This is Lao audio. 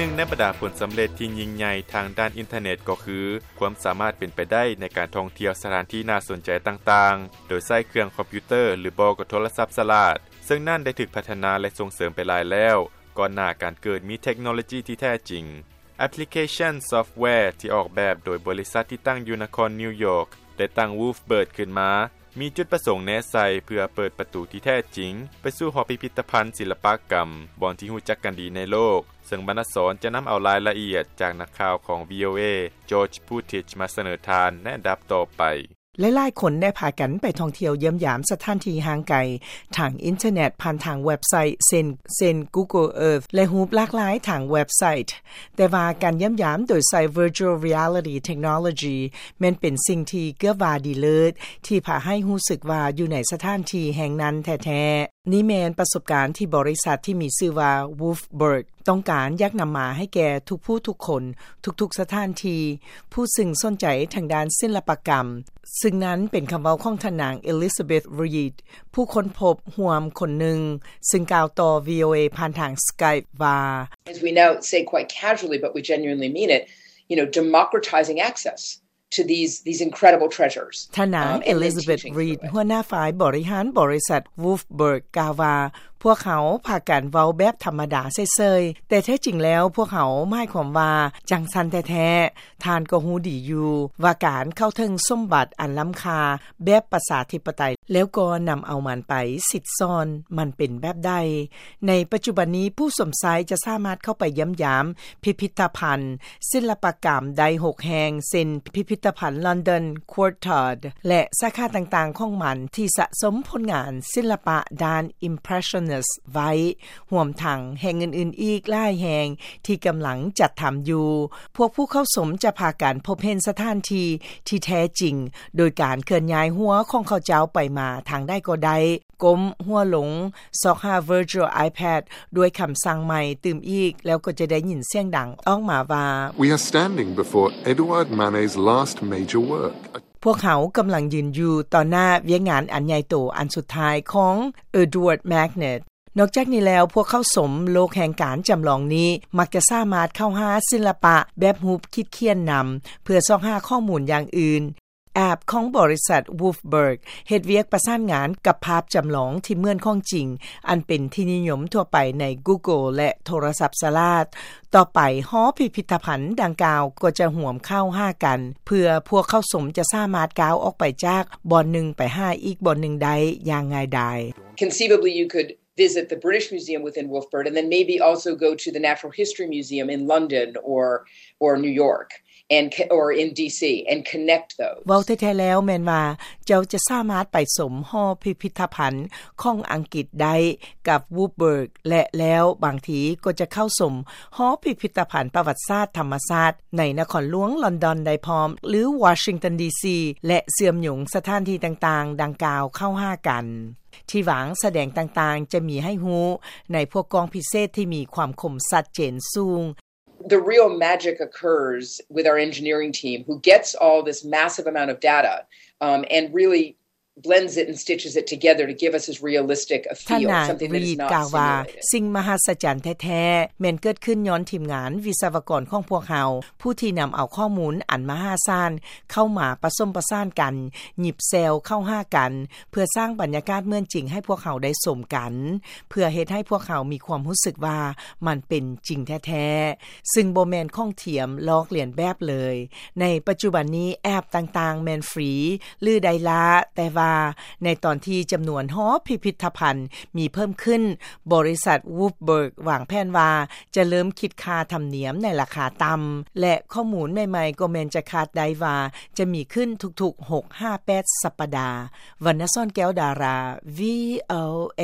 ໜຶ່ງໃນບັນດາຜົນສຳເລັດທີ່ຍິ່ງໃຫຍ່ທາງດ້ານອິນເຕີເນັດກໍຄື ຄວາມສາມາດເປັນໄປໄດ້ໃນການທ່ອງທ່ຽວສະຖານທີ່ໜ້າສົນໃຈຕ່າງໆ ໂດຍໃຊ້ເຄື່ອງຄອມພິວເຕີ ຫຼືບໍ່ກໍໂທລະສັບສະຫຼາດ, ເຊິ່ງນັ້ນໄດ້ຖືກພັດທະນາ ແລະ ສົ່ງເສີມໄປຫຼາຍແລ້ວ ກ່ອນໜ້າການເກີດມີເທັກໂນໂລຈີທີ່ແທ້ຈິງ. ແອັບພລິເຄຊັນຊອບແວທີ່ອອກແບບໂດຍບໍລິສັດທີ່ຕັ້ງຢູ່ນະຄອນນິວຢອກ ໄດ້ຕັ້ງ Wolfbird ຂຶ້ນມາ ມີຈຸດປະສົງແນໃສ່ເພື່ອເປີດປະຕູທີ່ແທ້ຈິງໄປສູ່ຫໍພິພິທະພັນສິລະປະກຳ ບ່ອນທີ່ຮູ້ຈັກກັນດີໃນໂລກ, ເຊິ່ງບັນດາສອນຈະນຳເອົາລາຍລະອຽດຈາກນັກຂ່າວຂອງ ວີໂອເອ George Putic ມາສະເໜີທ່ານໃນອັນດັບຕໍ່ໄປ. ຫຼາຍໆຄົນໄດ້ພາກັນໄປທ່ອງທ່ຽວຢ້ຽມຢາມສະຖານທີ່ຫ່າງໄກທາງອິນເຕີເນັດ ຜ່ານທາງເວັບໄຊເຊັ່ນ ເຊັ່ນ Google Earth ແລະ ຮູບຫຼາກຫຼາຍທາງເວັບໄຊ. ແຕ່ວ່າການຢ້ຽມຢາມໂດຍໃຊ້ Virtual Reality Technology ແມ່ນເປັນສິ່ງທີ່ເກືອບວ່າດີເລີດ ທີ່ພາໃຫ້ຮູ້ສຶກວ່າຢູ່ໃນສະຖານທີ່ແຫ່ງນັ້ນແທ້ໆ. ນີ້ແມ່ນປະສົບການທີ່ບໍລິສັດທີ່ມີຊື່ວ່າ Wolfbird ຕ້ອງການຢາກນຳມາໃຫ້ແກ່ທຸກຜູ້ທຸກຄົນ, ທຸກໆສະຖານທີ່, ຜູ້ຊຶ່ງສົນໃຈທາງດ້ານສິລະປະກຳ, ຊຶ່ງນັ້ນເປັນຄຳເວົ້າຂອງທ່ານນາງ Elizabeth Reed ຜູ້ຄົ້ນພົບຮ່ວມຄົນໜຶ່ງ, ຊຶ່ງກ່າວຕໍ່ ວີໂອເອ ຜ່ານທາງ Skype ວ່າ As we now say quite casually, but we genuinely mean it, you know, democratizing access to these, these incredible treasures. ທ່ານນາງ um, and then Elizabeth teaching Reed through it. ຫົວໜ້າຝ່າຍບໍລິຫານບໍລິສັດ Wolfbird ກ່າວວ່າ ພວກເຮົາພາກັນເວົ້າແບບທຳມະດາເສີຍໆ, ແຕ່ແທ້ຈິງແລ້ວພວກເຮົາໝາຍຄວາມວ່າຈັ່ງຊັ້ນແທ້ໆ. ທ່ານກໍຮູ້ດີຢູ່ວ່າການເຂົ້າເຖິງສົມບັດອັນລ້ຳຄ່າແບບປະຊາທິປະໄຕ ແລ້ວກໍນຳເອົາມັນໄປສິດສອນ ມັນເປັນແບບໃດ. ໃນປັດຈຸບັນນີ້ ຜູ້ຊົມໃຊ້ຈະສາມາດເຂົ້າໄປຢ້ຽມຢາມພິພິທະພັນສິລະປະກຳໄດ້ຫົກແຫ່ງ ເຊັ່ນ ພິພິທະພັນລອນດອນ Courtauld ແລະ ສາຂາຕ່າງໆຂອງມັນທີ່ສະສົມຜົນງານສິລະປະດ້ານ Impressionist ໄວ້, ຮວມທັງແຫ່ງອື່ນໆອີກຫຼາຍແຫ່ງທີ່ກຳລັງຈັດທຳຢູ່. ພວກຜູ້ເຂົ້າຊົມຈະພາກັນພົບເຫັນສະຖານທີ່ທີ່ແທ້ຈິງ ໂດຍການເຄື່ອນຍ້າຍຫົວຂອງເຂົາເຈົ້າໄປມາທາງໃດກໍໄດ້, ກົ້ມຫົວລົງ, ຊອກຫາ Virtual iPad ດ້ວຍຄຳສັ່ງໃໝ່ຕື່ມອີກ, ແລ້ວກໍຈະໄດ້ຍິນສຽງດັງອອກມາວ່າ We are standing before Edouard Manet's last major work. ພວກເຮົາກຳລັງຢືນຢູ່ຕໍ່ໜ້າວຽກງານອັນໃຫຍ່ໂຕອັນສຸດທ້າຍຂອງ Edouard Manet. ນອກຈາກນີ້ແລ້ວ, ພວກເຂົ້າຊົມໂລກແຫ່ງການຈຳລອງນີ້ ມັກຈະສາມາດເຂົ້າຫາສິລະປະແບບຮູບຂີດຂຽນນຳ ເພື່ອຊອກຫາຂໍ້ມູນຢ່າງອື່ນ. ແອັບຂອງບໍລິສັດ Wolfbird ເຮັດວຽກປະສານງານກັບພາບຈຳລອງທີ່ເໝືອນຂອງຈິງ ອັນເປັນທີ່ນິຍົມທົ່ວໄປໃນ Google ແລະ ໂທລະສັບສະຫຼາດ. ຕໍ່ໄປ, ຫໍພິພິທະພັນດັ່ງກ່າວກໍຈະຮ່ວມເຂົ້າຫາກັນ ເພື່ອພວກເຂົ້າຊົມຈະສາມາດກ້າວອອກໄປຈາກບ່ອນໜຶ່ງໄປຫາອີກບ່ອນໜຶ່ງໄດ້ຢ່າງງ່າຍດາຍ. Conceivably, you could visit the British Museum within Wolfbird and then maybe also go to the Natural History Museum in London or, or New York and, or in D C and connect those. ເວົ້າແທ້ໆແລ້ວແມ່ນວ່າ ເຈົ້າຈະສາມາດໄປຊົມຫໍພິພິທະພັນຂອງອັງກິດໄດ້ກັບ Wolfbird ແລະ ແລ້ວບາງທີກໍຈະເຂົ້າຊົມຫໍພິພິທະພັນປະຫວັດສາດທຳມະຊາດໃນນະຄອນຫຼວງລອນດອນໄດ້ພ້ອມ ຫຼື Washington D C ແລະ ເຊື່ອມໂຍງສະຖານທີ່ຕ່າງໆດັ່ງກ່າວເຂົ້າຫາກັນ. ທີ່ວາງສະແດງຕ່າງໆຈະມີໃຫ້ຮູ້ໃນພວກກ້ອງພິເສດທີ່ມີຄວາມຄົມຊັດເຈນສູງ. The real magic occurs with our engineering team, who gets all this massive amount of data, um, and really blends it and stitches it together to give us as realistic a feel, something that is not simulated. ທ່ານນາງ Reed ກ່າວວ່າ ສິ່ງມະຫັດສະຈັນແທ້ໆ ແມ່ນເກີດຂຶ້ນຍ້ອນທີມງານວິສະວະກອນຂອງພວກເຮົາ ຜູ້ທີ່ນຳເອົາຂໍ້ມູນອັນມະຫາສານເຂົ້າມາປະສົມປະສານກັນ, ຫຍິບແຊວເຂົ້າຫາກັນ ເພື່ອສ້າງບັນຍາກາດເໝືອນຈິງໃຫ້ພວກເຮົາໄດ້ຊົມກັນ, ເພື່ອເຮັດໃຫ້ພວກເຮົາມີຄວາມຮູ້ສຶກວ່າມັນເປັນຈິງແທ້ໆ, ຊຶ່ງບໍ່ແມ່ນຂອງທຽມລອກລຽນແບບເລີຍ. ໃນປັດຈຸບັນນີ້ ແອັບຕ່າງໆແມ່ນຟຣີ ຫຼື ໄດ້ລ້າ, ແຕ່ວ່າໃນຕອນທີ່ຈຳນວນຫໍພິພິທະພັນມີເພີ່ມຂຶ້ນ, ບໍລິສັດ Wolfbird ວາງແຜນວ່າ ຈະເລີ່ມຄິດຄ່າທຳນຽມໃນລາຄາຕ່ຳ ແລະ ຂໍ້ມູນໃໝ່ໆກໍແມ່ນຈະຄາດໄດ້ວ່າຈະມີຂຶ້ນທຸກໆຫົກຫາແປດສັບປະດາ. ວັນນະສອນ ແກ້ວດາລາ ວີໂອເອ.